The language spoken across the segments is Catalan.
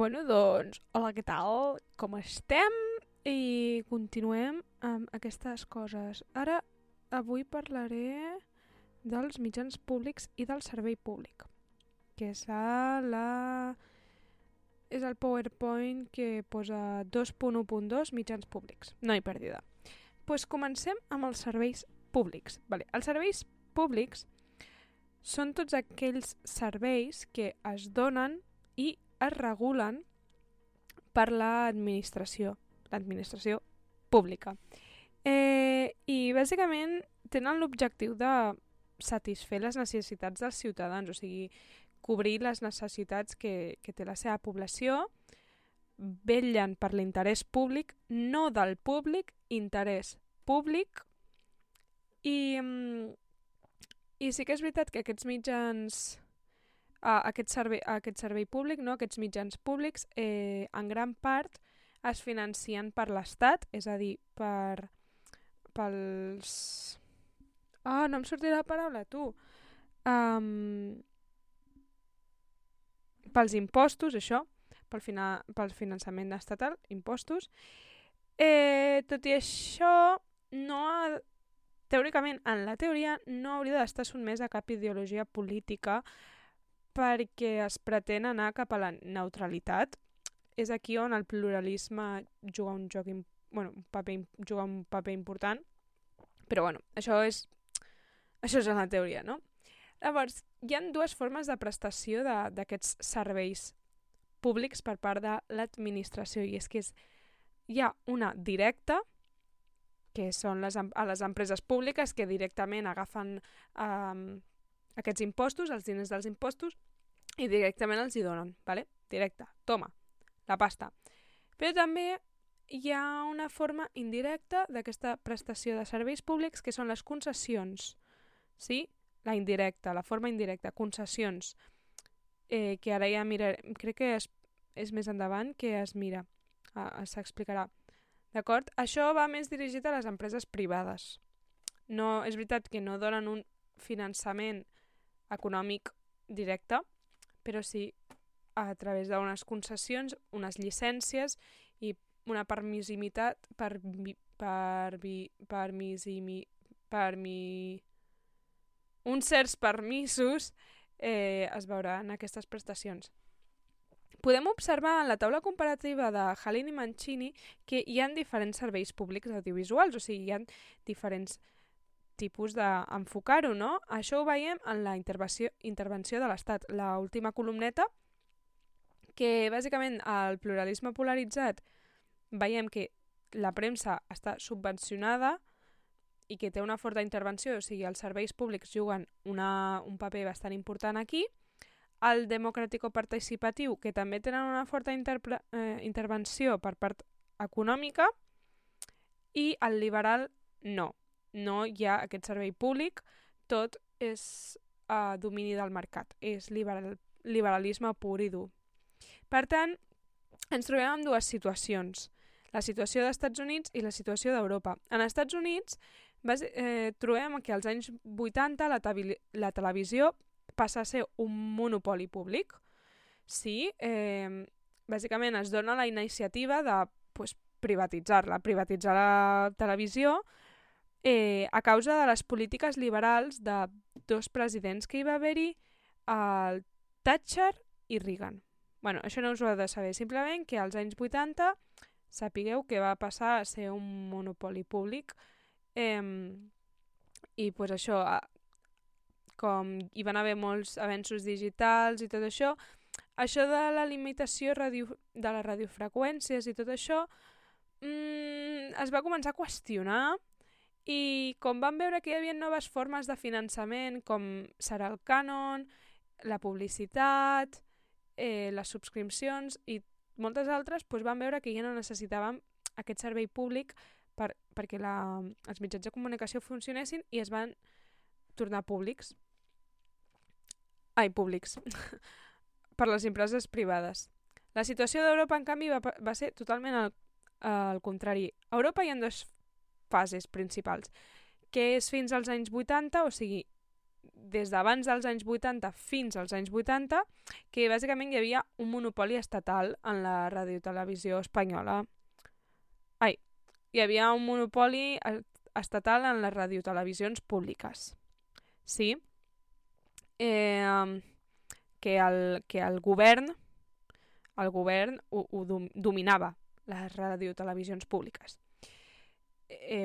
Doncs, hola, què tal? Com estem? I continuem amb aquestes coses. Avui parlaré dels mitjans públics i del servei públic, que és el PowerPoint que posa 2.1.2 mitjans públics. No hi perdida. Doncs comencem amb els serveis públics. Els serveis públics són tots aquells serveis que es donen i es regulen per l'administració pública. I bàsicament tenen l'objectiu de satisfer les necessitats dels ciutadans, o sigui, cobrir les necessitats que té la seva població, vetllen per l'interès públic, no del públic, interès públic, i sí que és veritat que aquests mitjans, aquest servei públic, no? Aquests mitjans públics, en gran part es financien per l'Estat, és a dir, pels... no em sortirà la paraula, tu. Pels impostos, això, pel finançament estatal, impostos. Tot i això, teòricament, en la teoria, no hauria d'estar sotmès a cap ideologia política perquè es pretén anar cap a la neutralitat. És aquí on el pluralisme juga un paper important, però això és en la teoria, no? Llavors, hi ha dues formes de prestació d'aquests serveis públics per part de l'administració, i és que hi ha una directa, que són les empreses públiques que directament agafen aquests impostos, els diners dels impostos, i directament els hi donen, ¿vale? Directa, toma, la pasta. Però també hi ha una forma indirecta d'aquesta prestació de serveis públics, que són les concessions, sí? La indirecta, la forma indirecta, concessions, que ara ja crec que és més endavant que es mira, s'explicarà. D'acord? Això va més dirigit a les empreses privades. No, és veritat que no donen un finançament econòmic directe, però sí a través d'unes concessions, unes llicències i una permissivitat uns certs permisos es veuran aquestes prestacions. Podem observar en la taula comparativa de Halin i Mancini que hi ha diferents serveis públics audiovisuals, o sigui, hi ha diferents tipus d'enfocar-ho, no? Això ho veiem en la intervenció de l'Estat. L'última columneta, que bàsicament el pluralisme polaritzat, veiem que la premsa està subvencionada i que té una forta intervenció, o sigui, els serveis públics juguen un paper bastant important aquí. El democràtico-participatiu, que també tenen una forta intervenció per part econòmica, i el liberal no. No hi ha aquest servei públic, tot és domini del mercat, és liberalisme pur i dur. Per tant, ens trobem amb dues situacions, la situació dels Estats Units i la situació d'Europa. En els Estats Units trobem que als anys 80 la televisió passa a ser un monopoli públic. Sí, bàsicament es dona la iniciativa de privatitzar la televisió a causa de les polítiques liberals de dos presidents que hi va haver-hi, el Thatcher i Reagan. Això no us ho heu de saber, simplement que als anys 80 sapigueu que va passar a ser un monopoli públic i això, com hi van haver molts avenços digitals i tot això de la limitació de les radiofreqüències i tot això es va començar a qüestionar, i com van veure que hi havia noves formes de finançament, com serà el cànon, la publicitat, les subscripcions i moltes altres, van veure que ja no necessitàvem aquest servei públic perquè els mitjans de comunicació funcionessin, i es van tornar públics per les empreses privades. La situació d'Europa, en canvi, va ser totalment al contrari. A Europa hi ha dues fases principals, que és fins als anys 80, o sigui, des d'abans dels anys 80 fins als anys 80, que bàsicament hi havia un monopoli estatal en la radiotelevisió espanyola. Hi havia un monopoli estatal en les radiotelevisions públiques. Sí? Que el govern ho dominava, les radiotelevisions públiques.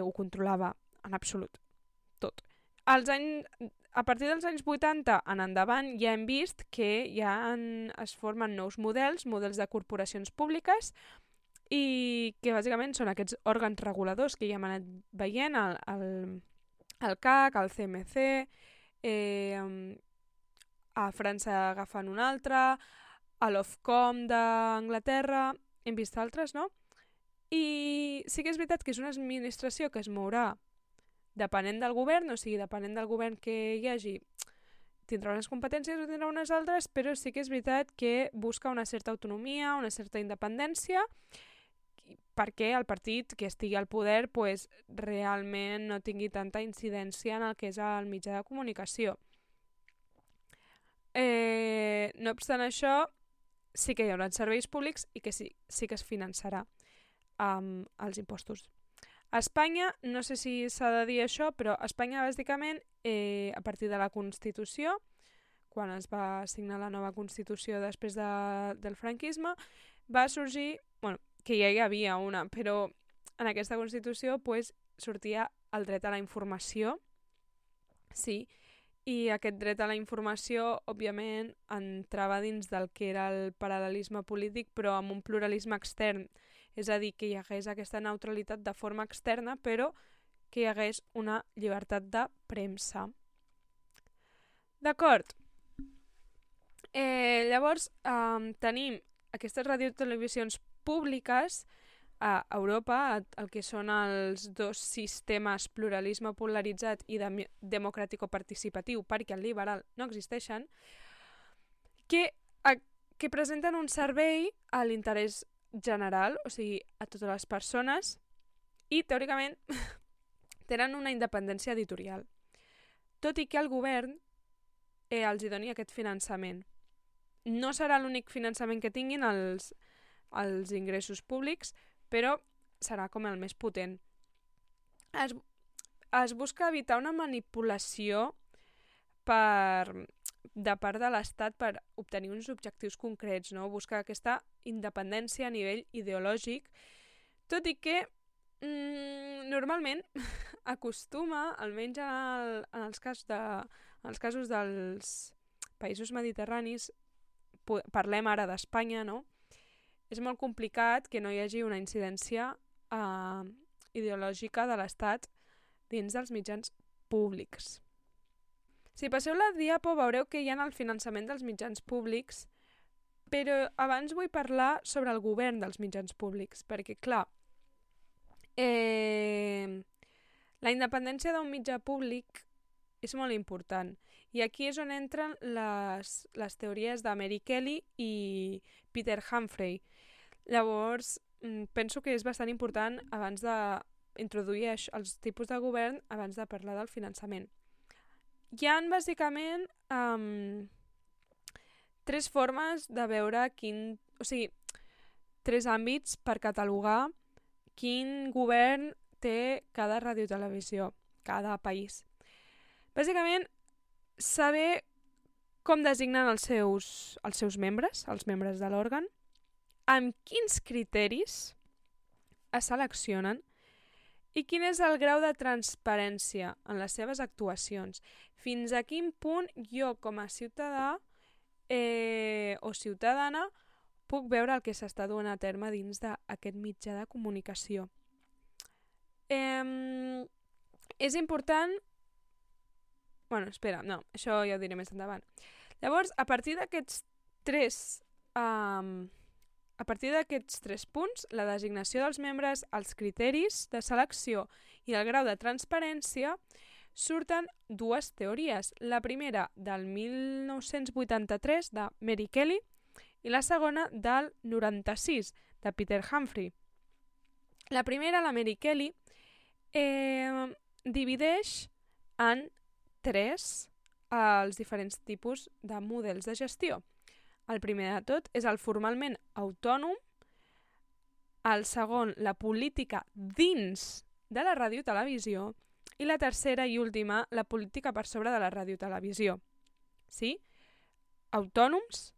Ho controlava en absolut tot. A partir dels anys 80 en endavant ja hem vist que es formen nous models de corporacions públiques i que bàsicament són aquests òrgans reguladors que ja hem anat veient, el CAC, el CMC, a França agafen un altre, a l'Ofcom d'Anglaterra, hem vist altres, no? I sí que és veritat que és una administració que es mourà depenent del govern, o sigui, depenent del govern que hi hagi, tindrà unes competències o tindrà unes altres, però sí que és veritat que busca una certa autonomia, una certa independència, perquè el partit que estigui al poder realment no tingui tanta incidència en el que és el mitjà de comunicació. No obstant això, sí que hi haurà serveis públics i que sí que es finançarà amb els impostos. A Espanya, no sé si s'ha de dir això, però a Espanya bàsicament, a partir de la Constitució, quan es va signar la nova Constitució després del franquisme, va sorgir, que ja hi havia una, però en aquesta Constitució sortia el dret a la informació, sí, i aquest dret a la informació, òbviament, entrava dins del que era el paral·lelisme polític, però amb un pluralisme extern, és a dir, que hi hagués aquesta neutralitat de forma externa, però que hi hagués una llibertat de premsa. D'acord. Llavors, tenim aquestes radiotelevisions públiques a Europa, el que són els dos sistemes pluralisme polaritzat i democràtico-participatiu, perquè el liberal no existeixen, que presenten un servei a l'interès general, o sigui, a totes les persones, i teòricament tenen una independència editorial. Tot i que el govern els hi doni aquest finançament. No serà l'únic finançament que tinguin els ingressos públics, però serà com el més potent. Es busca evitar una manipulació de part de l'Estat per obtenir uns objectius concrets, no? Busca aquesta independència a nivell ideològic, tot i que normalment acostuma, almenys en els casos dels països mediterranis, parlem ara d'Espanya, no? És molt complicat que no hi hagi una incidència ideològica de l'Estat dins dels mitjans públics. Si passeu la diapo veureu que hi ha el finançament dels mitjans públics, però abans vull parlar sobre el govern dels mitjans públics, perquè clar, la independència d'un mitjà públic és molt important. I aquí és on entren les teories de Mary Kelly i Peter Humphrey. Llavors, penso que és bastant important abans d'introduir els tipus de govern, abans de parlar del finançament. Hi ha bàsicament tres formes de veure tres àmbits per catalogar quin govern té cada radiotelevisió, cada país. Bàsicament, saber com designen els seus membres, els membres de l'òrgan, amb quins criteris es seleccionen i quin és el grau de transparència en les seves actuacions. Fins a quin punt jo, com a ciutadà o ciutadana, puc veure el que s'està duent a terme dins d'aquest mitjà de comunicació. És important... això ja ho diré més endavant. Llavors, a partir d'aquests tres punts, la designació dels membres, els criteris de selecció i el grau de transparència, surten dues teories. La primera, del 1983, de Mary Kelly, i la segona, del 96, de Peter Humphrey. La primera, la Mary Kelly, divideix en tres els diferents tipus de models de gestió. El primer de tot és el formalment autònom, el segon, la política dins de la ràdio-televisió, i la tercera i última, la política per sobre de la ràdio-televisió. Sí? Autònoms,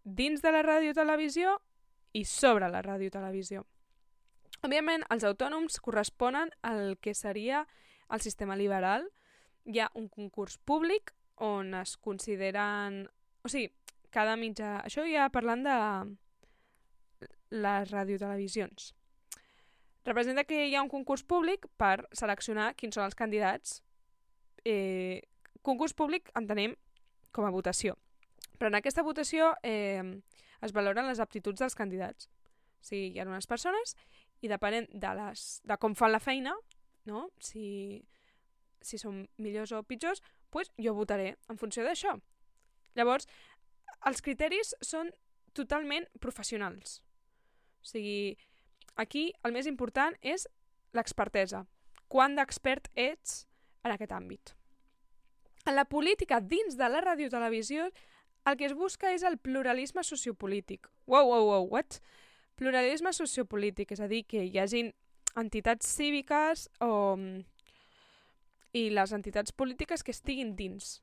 dins de la ràdio-televisió i sobre la ràdio-televisió. Òbviament, els autònoms corresponen al que seria el sistema liberal. Hi ha un concurs públic on es consideren... O sigui, cada mitjà... Això ja parlant de les radiotelevisions. Representa que hi ha un concurs públic per seleccionar quins són els candidats. Concurs públic entenem com a votació. Però en aquesta votació es valoren les aptituds dels candidats. O sigui, hi ha unes persones i depenent de com fan la feina, no? Si són millors o pitjors, doncs jo votaré en funció d'això. Llavors, els criteris són totalment professionals. O sigui, aquí el més important és l'expertesa. Quant d'expert ets en aquest àmbit. En la política dins de la radiotelevisió el que es busca és el pluralisme sociopolític. Wow, what? Pluralisme sociopolític, és a dir, que hi hagin entitats cíviques i les entitats polítiques que estiguin dins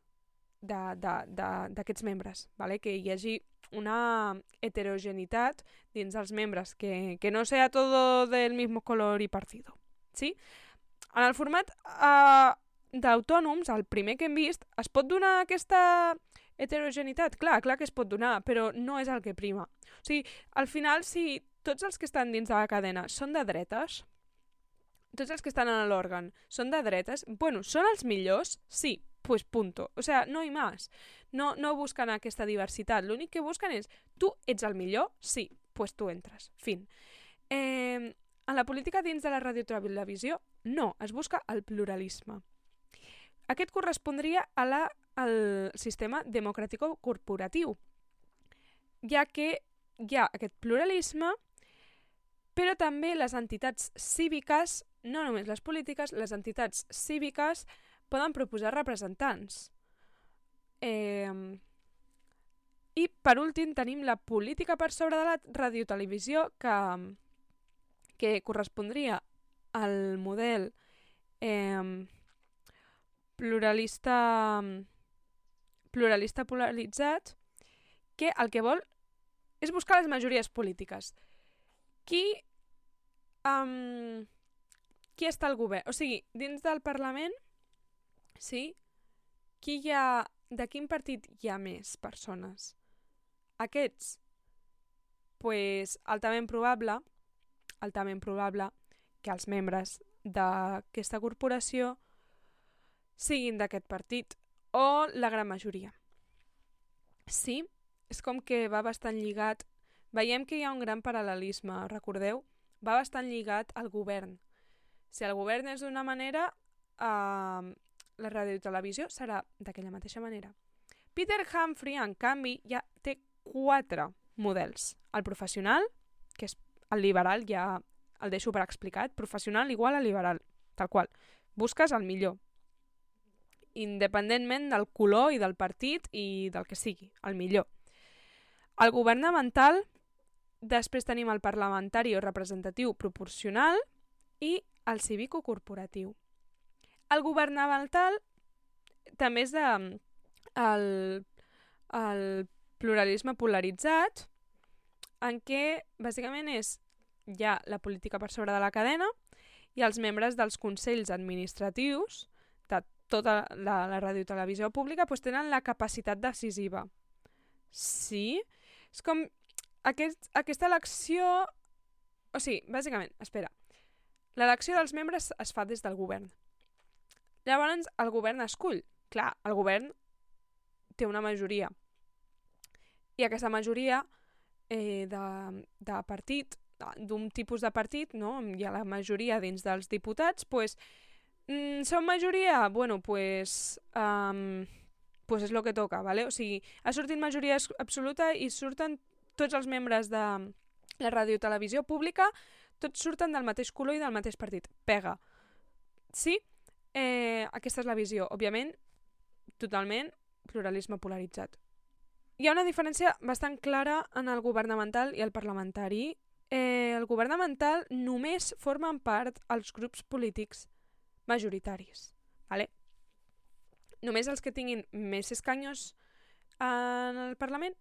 d'aquests membres, ¿vale? Que hi hagi una heterogeneïtat dins dels membres, que no sea todo del mismo color y partido. ¿Sí? En el format d'autònoms, el primer que hem vist, es pot donar aquesta heterogeneïtat? Clar que es pot donar, però no és el que prima. O sigui, al final, si tots els que estan dins de la cadena són de dretes, tots els que estan en l'òrgan són de dretes, bueno, són els millors? Sí, pues punto. O sea, no hi més. No busquen aquesta diversitat. L'únic que busquen és, tu ets el millor? Sí, pues tu entres. Fin. En la política dins de la radiotelevisió, no, es busca el pluralisme. Aquest correspondria al sistema democràtico-corporatiu, ja que hi ha aquest pluralisme, però també les entitats cíviques, no només les polítiques, les entitats cíviques poden proposar representants. I per últim tenim la política per sobre de la radiotelevisió que correspondria al model pluralista polaritzat, que el que vol és buscar les majories polítiques. Qui està al govern? O sigui, dins del Parlament, sí? De quin partit hi ha més persones? Aquests? Pues altament probable que els membres d'aquesta corporació siguin d'aquest partit, o la gran majoria. Sí, és com que va bastant lligat. Veiem que hi ha un gran paral·lelisme, recordeu? Va bastant lligat al govern. Si el govern és d'una manera, la radiotelevisió serà d'aquella mateixa manera. Peter Humphrey, en canvi, ja té 4 models. El professional, que és el liberal, ja el deixo per explicat. Professional igual a liberal, tal qual. Busques el millor, independentment del color i del partit i del que sigui, el millor. El governamental, després tenim el parlamentari o representatiu proporcional i el cívico-corporatiu. El governamental també és el pluralisme polaritzat, en què bàsicament hi ha la política per sobre de la cadena i els membres dels consells administratius de tota la radiotelevisió pública tenen la capacitat decisiva. Sí? És com aquesta elecció... O sigui, bàsicament, espera. L'elecció dels membres es fa des del govern. Llavors, el govern escull. Clar, el govern té una majoria. I aquesta majoria de partit, d'un tipus de partit, no? Hi ha la majoria dins dels diputats, són majoria? Bueno, pues és lo que toca, ¿vale? O sigui, ha sortit majoria absoluta i surten tots els membres de la radiotelevisió pública, tots surten del mateix color i del mateix partit. Pega. Sí? Aquesta és la visió. Òbviament, totalment pluralisme polaritzat. Hi ha una diferència bastant clara en el governamental i el parlamentari. El governamental només formen part els grups polítics majoritaris. Vale? Només els que tinguin més escanyos en el Parlament,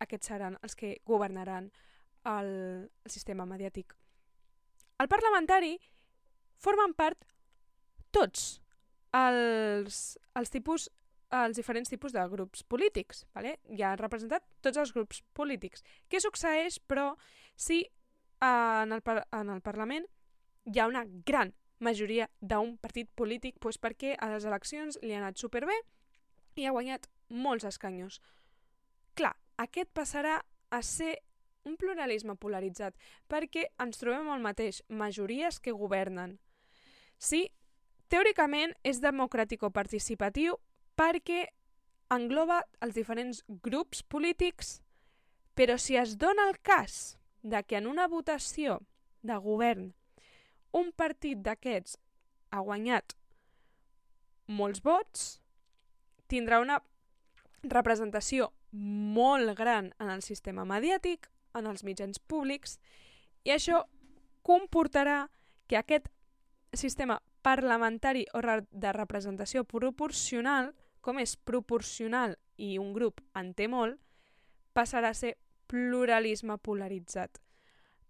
aquests seran els que governaran el sistema mediàtic. El parlamentari formen part tots els diferents tipus de grups polítics. Vale? Ja han representat tots els grups polítics. Què succeeix, però, si en el Parlament hi ha una gran majoria d'un partit polític perquè a les eleccions li ha anat superbé i ha guanyat molts escanyos? Clar, aquest passarà a ser un pluralisme polaritzat perquè ens trobem el mateix, majories que governen. Sí, teòricament és democràtico-participatiu perquè engloba els diferents grups polítics, però si es dona el cas de que en una votació de govern un partit d'aquests ha guanyat molts vots, tindrà una representació molt gran en el sistema mediàtic, en els mitjans públics, i això comportarà que aquest sistema parlamentari o de representació proporcional, com és proporcional i un grup en té molt, passarà a ser pluralisme polaritzat,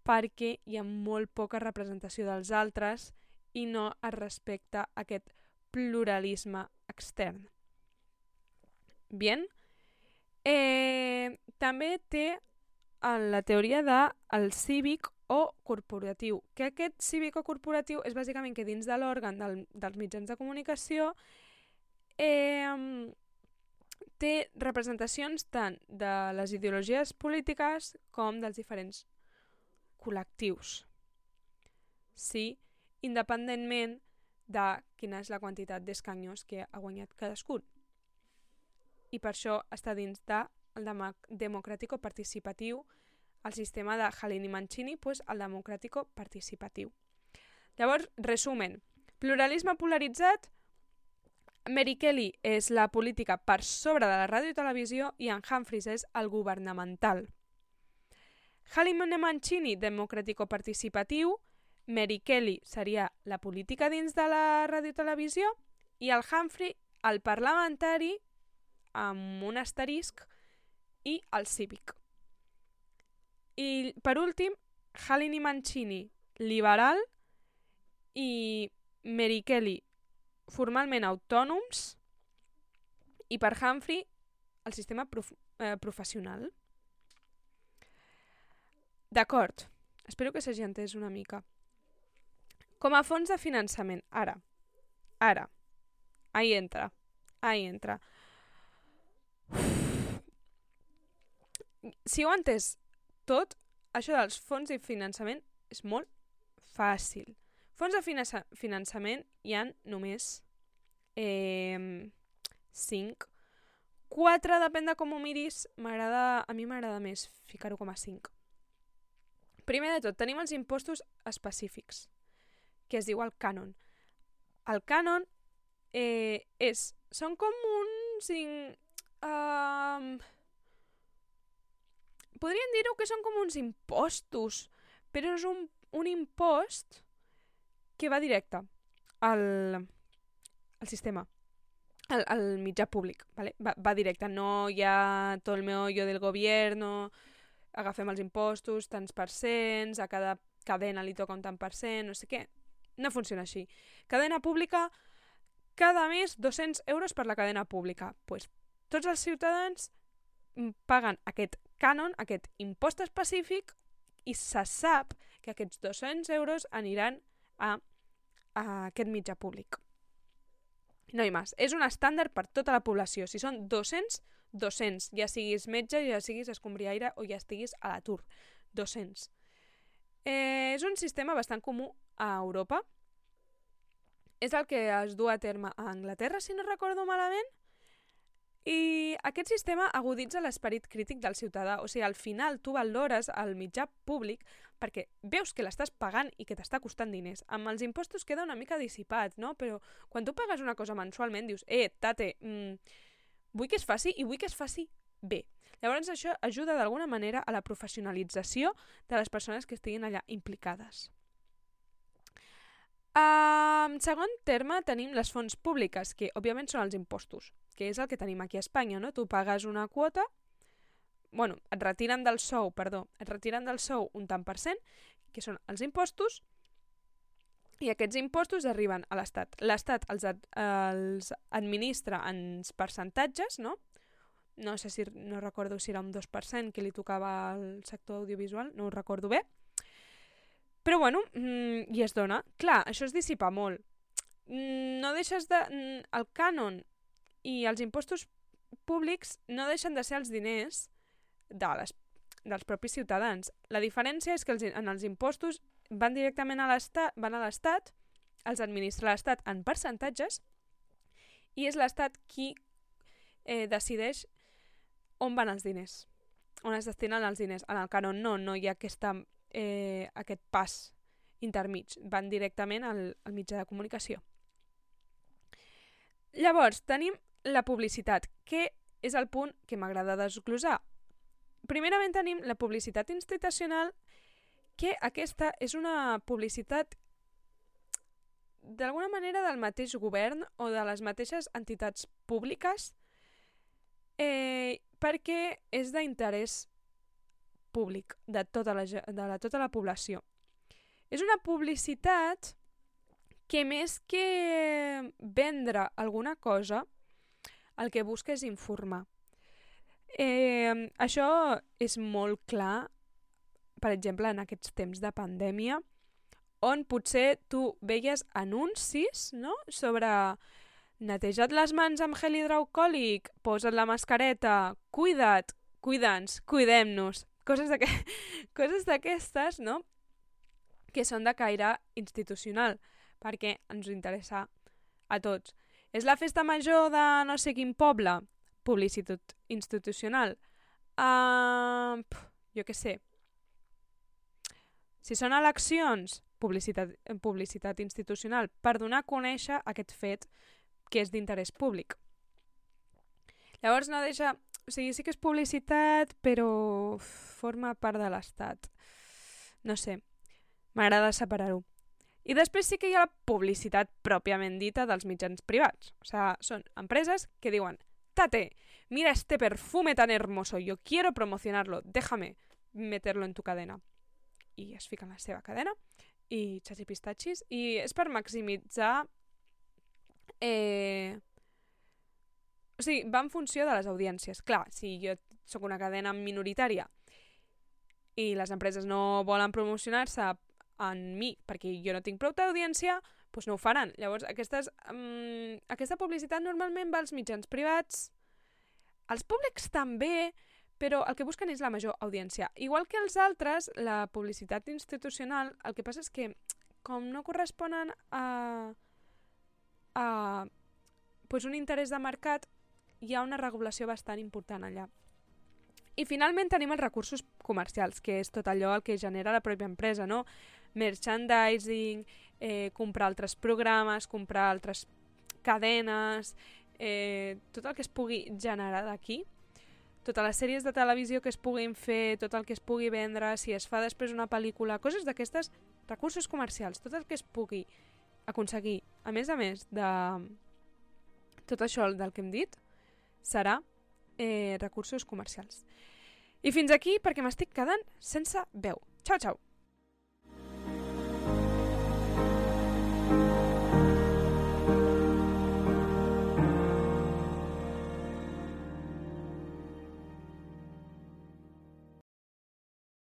perquè hi ha molt poca representació dels altres i no es respecta aquest pluralisme extern. Bien. També té la teoria del cívic o corporatiu, que aquest cívic o corporatiu és bàsicament que dins de l'òrgan dels mitjans de comunicació té representacions tant de les ideologies polítiques com dels diferents col·lectius. Sí, independentment de quina és la quantitat d'escanyos que ha guanyat cadascun. I per això està dins del democràtico-participatiu, el sistema de Halin i Mancini, el democràtico-participatiu. Llavors, resumen, pluralisme polaritzat, Mary Kelly és la política per sobre de la ràdio i televisió i en Humphries és el governamental. Halin i Mancini, democràtico-participatiu, Mary Kelly seria la política dins de la ràdio i televisió i el Humphrey, el parlamentari, amb un asterisc, i el cívic. I per últim, Halin i Mancini, liberal, i Mary Kelly, formalment autònoms, i per Humphrey, el sistema professional. D'acord, espero que s'hagi entès una mica. Com a fons de finançament, ara, ahí entra. Si ho ha entès tot, això dels fons de finançament és molt fàcil. Fons de finançament hi ha només 5. 4, depèn de com ho miris, a mi m'agrada més ficar-ho com a 5. Primer de tot, tenim els impostos específics, que es diu el cànon. El cànon són com uns... podríem dir-ho que són com uns impostos, però és un impost que va directe al sistema, al mitjà públic, ¿vale? Va directe, no hi ha tot el meollo del gobierno, agafem els impostos, tants percents, a cada cadena li toca un tant percent, no sé què. No funciona així. Cadena pública, cada mes 200 euros per la cadena pública. Pues, tots els ciutadans paguen aquest cànon, aquest impost específic, i se sap que aquests 200 euros aniran a aquest mitjà públic. No hi més. És un estàndard per tota la població. Si són 200, 200. Ja siguis metge, ja siguis escombriaire o ja estiguis a l'atur. 200. És un sistema bastant comú a Europa. És el que es du a terme a Anglaterra, si no recordo malament. I aquest sistema aguditza l'esperit crític del ciutadà. O sigui, al final tu valores el mitjà públic perquè veus que l'estàs pagant i que t'està costant diners. Amb els impostos queda una mica dissipat, no? Però quan tu pagues una cosa mensualment dius tate, vull que es faci i vull que es faci bé. Llavors això ajuda d'alguna manera a la professionalització de les persones que estiguin allà implicades. En segon terme tenim les fonts públiques, que òbviament són els impostos, que és el que tenim aquí a Espanya, no? Tu pagues una quota, et retiren del sou un tant per cent, que són els impostos, i aquests impostos arriben a l'Estat. L'Estat els administra en percentatges, no? No recordo si era un 2% que li tocava al sector audiovisual, no ho recordo bé, però i es dona. Clar, això es dissipa molt. No deixes de... El cànon i els impostos públics no deixen de ser els diners dels propis ciutadans. La diferència és que en els impostos van directament a l'Estat, els administra l'Estat en percentatges, i és l'Estat qui decideix on van els diners, on es destinen els diners. En el cànon no hi ha aquest pas intermig, van directament al mitjà de comunicació. Llavors, tenim la publicitat, que és el punt que m'agrada desglosar. Primerament tenim la publicitat institucional, que aquesta és una publicitat d'alguna manera del mateix govern o de les mateixes entitats públiques, perquè és d'interès públic de tota la població. És una publicitat que més que vendre alguna cosa, el que busca és informar. Això és molt clar, per exemple, en aquests temps de pandèmia, on potser tu veies anuncis, no?, sobre neteja't les mans amb gel hidroalcohòlic, posa't la mascareta, cuida't, cuida'ns, cuidem-nos. Coses d'aquestes, no?, que són de caire institucional, perquè ens interessa a tots. És la festa major de no sé quin poble? Publicitat institucional. Jo què sé. Si són eleccions, publicitat institucional, per donar a conèixer aquest fet que és d'interès públic. Llavors no deixa... O sigui, sí que és publicitat, però forma part de l'Estat. No sé, m'agrada separar-ho. I després sí que hi ha la publicitat pròpiament dita dels mitjans privats. O sigui, són empreses que diuen «Tate, mira este perfume tan hermoso, yo quiero promocionarlo, déjame meterlo en tu cadena». I es fica en la seva cadena, i xachipistatxis, i és per maximitzar... O sigui, va en funció de les audiències. Clar, si jo sóc una cadena minoritària i les empreses no volen promocionar-se en mi perquè jo no tinc prou d'audiència, doncs no ho faran. Llavors, aquesta publicitat normalment va als mitjans privats, als públics també, però el que busquen és la major audiència. Igual que els altres, la publicitat institucional, el que passa és que, com no corresponen a un interès de mercat, hi ha una regulació bastant important allà. I finalment tenim els recursos comercials, que és tot allò el que genera la pròpia empresa, no? Merchandising, comprar altres programes, comprar altres cadenes, tot el que es pugui generar d'aquí, totes les sèries de televisió que es puguin fer, tot el que es pugui vendre, si es fa després una pel·lícula, coses d'aquestes, recursos comercials, tot el que es pugui aconseguir, a més de tot això del que hem dit, serà recursos comercials. I fins aquí perquè m'estic quedant sense veu. Ciao, ciao!